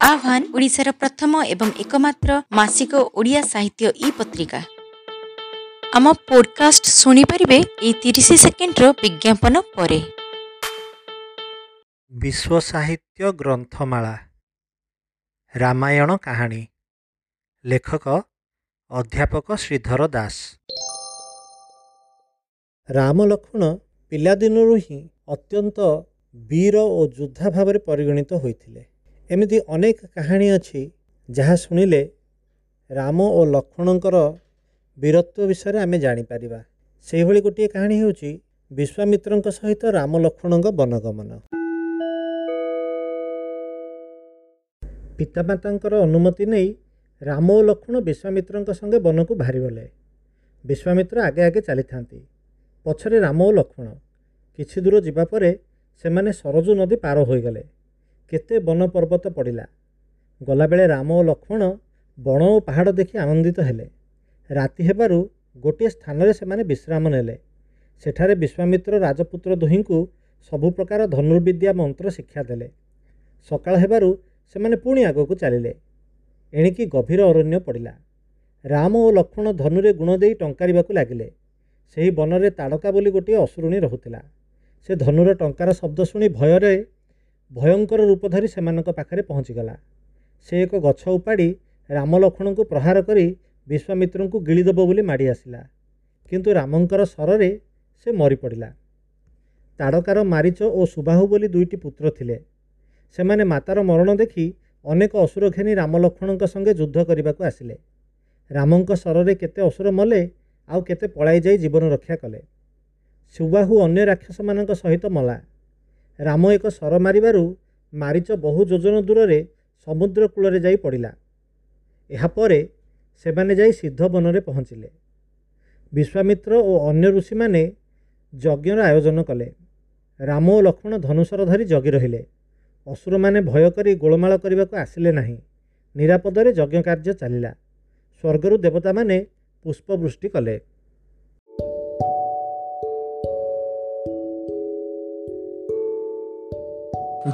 ଆହ୍ୱାନ ଓଡ଼ିଶାର ପ୍ରଥମ ଏବଂ ଏକମାତ୍ର ମାସିକ ଓଡ଼ିଆ ସାହିତ୍ୟ ଇ ପତ୍ରିକା। ଆମ ପୋଡକାଷ୍ଟ ଶୁଣିପାରିବେ ଏଇ 30 ସେକେଣ୍ଡର ବିଜ୍ଞାପନ ପରେ। ବିଶ୍ୱ ସାହିତ୍ୟ ଗ୍ରନ୍ଥମାଳା ରାମାୟଣ କାହାଣୀ, ଲେଖକ ଅଧ୍ୟାପକ ଶ୍ରୀଧର ଦାସ। ରାମ ଲକ୍ଷ୍ମଣ ପିଲାଦିନରୁ ହିଁ ଅତ୍ୟନ୍ତ ବୀର ଓ ଯୋଦ୍ଧା ଭାବରେ ପରିଗଣିତ ହୋଇଥିଲେ। ଏମିତି ଅନେକ କାହାଣୀ ଅଛି ଯାହା ଶୁଣିଲେ ରାମ ଓ ଲକ୍ଷ୍ମଣଙ୍କର ବୀରତ୍ୱ ବିଷୟରେ ଆମେ ଜାଣିପାରିବା। ସେହିଭଳି ଗୋଟିଏ କାହାଣୀ ହେଉଛି ବିଶ୍ୱାମିତ୍ରଙ୍କ ସହିତ ରାମ ଲକ୍ଷ୍ମଣଙ୍କ ବନଗମନ। ପିତାମାତାଙ୍କର ଅନୁମତି ନେଇ ରାମ ଓ ଲକ୍ଷ୍ମଣ ବିଶ୍ୱାମିତ୍ରଙ୍କ ସଙ୍ଗେ ବନକୁ ବାହାରିଗଲେ। ବିଶ୍ୱାମିତ୍ର ଆଗେ ଆଗେ ଚାଲିଥାନ୍ତି, ପଛରେ ରାମ ଓ ଲକ୍ଷ୍ମଣ। କିଛି ଦୂର ଯିବା ପରେ ସେମାନେ ସରଜୁ ନଦୀ ପାର ହୋଇଗଲେ। କେତେ ବନ ପର୍ବତ ପଡ଼ିଲା। ଗଲାବେଳେ ରାମ ଓ ଲକ୍ଷ୍ମଣ ବଣ ଓ ପାହାଡ଼ ଦେଖି ଆନନ୍ଦିତ ହେଲେ। ରାତି ହେବାରୁ ଗୋଟିଏ ସ୍ଥାନରେ ସେମାନେ ବିଶ୍ରାମ ନେଲେ। ସେଠାରେ ବିଶ୍ୱାମିତ୍ର ରାଜପୁତ୍ର ଦୁହିଁଙ୍କୁ ସବୁ ପ୍ରକାର ଧନୁର୍ବିଦ୍ୟା ମନ୍ତ୍ର ଶିକ୍ଷା ଦେଲେ। ସକାଳ ହେବାରୁ ସେମାନେ ପୁଣି ଆଗକୁ ଚାଲିଲେ। ଏଣିକି ଗଭୀର ଅରଣ୍ୟ ପଡ଼ିଲା। ରାମ ଓ ଲକ୍ଷ୍ମଣ ଧନୁରେ ଗୁଣ ଦେଇ ଟଙ୍କାରିବାକୁ ଲାଗିଲେ। ସେହି ବନରେ ତାଡ଼କା ବୋଲି ଗୋଟିଏ ଅସୁରୁଣୀ ରହୁଥିଲା। ସେ ଧନୁର ଟଙ୍କାର ଶବ୍ଦ ଶୁଣି ଭୟରେ ଭୟଙ୍କର ରୂପ ଧରି ସେମାନଙ୍କ ପାଖରେ ପହଞ୍ଚିଗଲା। ସେ ଏକ ଗଛ ଉପାଡ଼ି ରାମ ଲକ୍ଷ୍ମଣଙ୍କୁ ପ୍ରହାର କରି ବିଶ୍ୱାମିତ୍ରଙ୍କୁ ଗିଳିଦେବ ବୋଲି ମାଡ଼ି ଆସିଲା। କିନ୍ତୁ ରାମଙ୍କର ଶରରେ ସେ ମରିପଡ଼ିଲା। ତାଡ଼କାର ମାରିଚ ଓ ସୁବାହୁ ବୋଲି ଦୁଇଟି ପୁତ୍ର ଥିଲେ। ସେମାନେ ମାତାର ମରଣ ଦେଖି ଅନେକ ଅସୁର ଘେନି ରାମ ଲକ୍ଷ୍ମଣଙ୍କ ସଙ୍ଗେ ଯୁଦ୍ଧ କରିବାକୁ ଆସିଲେ। ରାମଙ୍କ ଶରରେ କେତେ ଅସୁର ମଲେ, ଆଉ କେତେ ପଳାଇ ଯାଇ ଜୀବନ ରକ୍ଷା କଲେ। ସୁବାହୁ ଅନ୍ୟ ରାକ୍ଷସମାନଙ୍କ ସହିତ ମଲା। ରାମ ଏକ ଶର ମାରିବାରୁ ମାରିଚ ବହୁ ଯୋଜନ ଦୂରରେ ସମୁଦ୍ର କୂଳରେ ଯାଇ ପଡ଼ିଲା। ଏହାପରେ ସେମାନେ ଯାଇ ସିଦ୍ଧ ବନରେ ପହଞ୍ଚିଲେ। ବିଶ୍ୱାମିତ୍ର ଓ ଅନ୍ୟ ଋଷିମାନେ ଯଜ୍ଞର ଆୟୋଜନ କଲେ। ରାମ ଓ ଲକ୍ଷ୍ମଣ ଧନୁଶର ଧରି ଜଗି ରହିଲେ। ଅସୁରମାନେ ଭୟ କରି ଗୋଳମାଳ କରିବାକୁ ଆସିଲେ ନାହିଁ। ନିରାପଦରେ ଯଜ୍ଞ କାର୍ଯ୍ୟ ଚାଲିଲା। ସ୍ୱର୍ଗରୁ ଦେବତାମାନେ ପୁଷ୍ପବୃଷ୍ଟି କଲେ।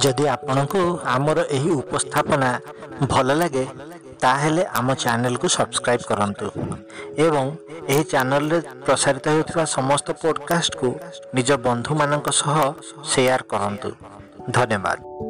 ଯଦି ଆପଣଙ୍କୁ ଆମର ଏହି ଉପସ୍ଥାପନା ଭଲ ଲାଗେ, ତାହେଲେ ଆମ ଚ୍ୟାନେଲକୁ ସବସ୍କ୍ରାଇବ୍ କରନ୍ତୁ ଏବଂ ଏହି ଚ୍ୟାନେଲରେ ପ୍ରସାରିତ ହେଉଥିବା ସମସ୍ତ ପଡ଼କାଷ୍ଟକୁ ନିଜ ବନ୍ଧୁମାନଙ୍କ ସହ ସେୟାର କରନ୍ତୁ। ଧନ୍ୟବାଦ।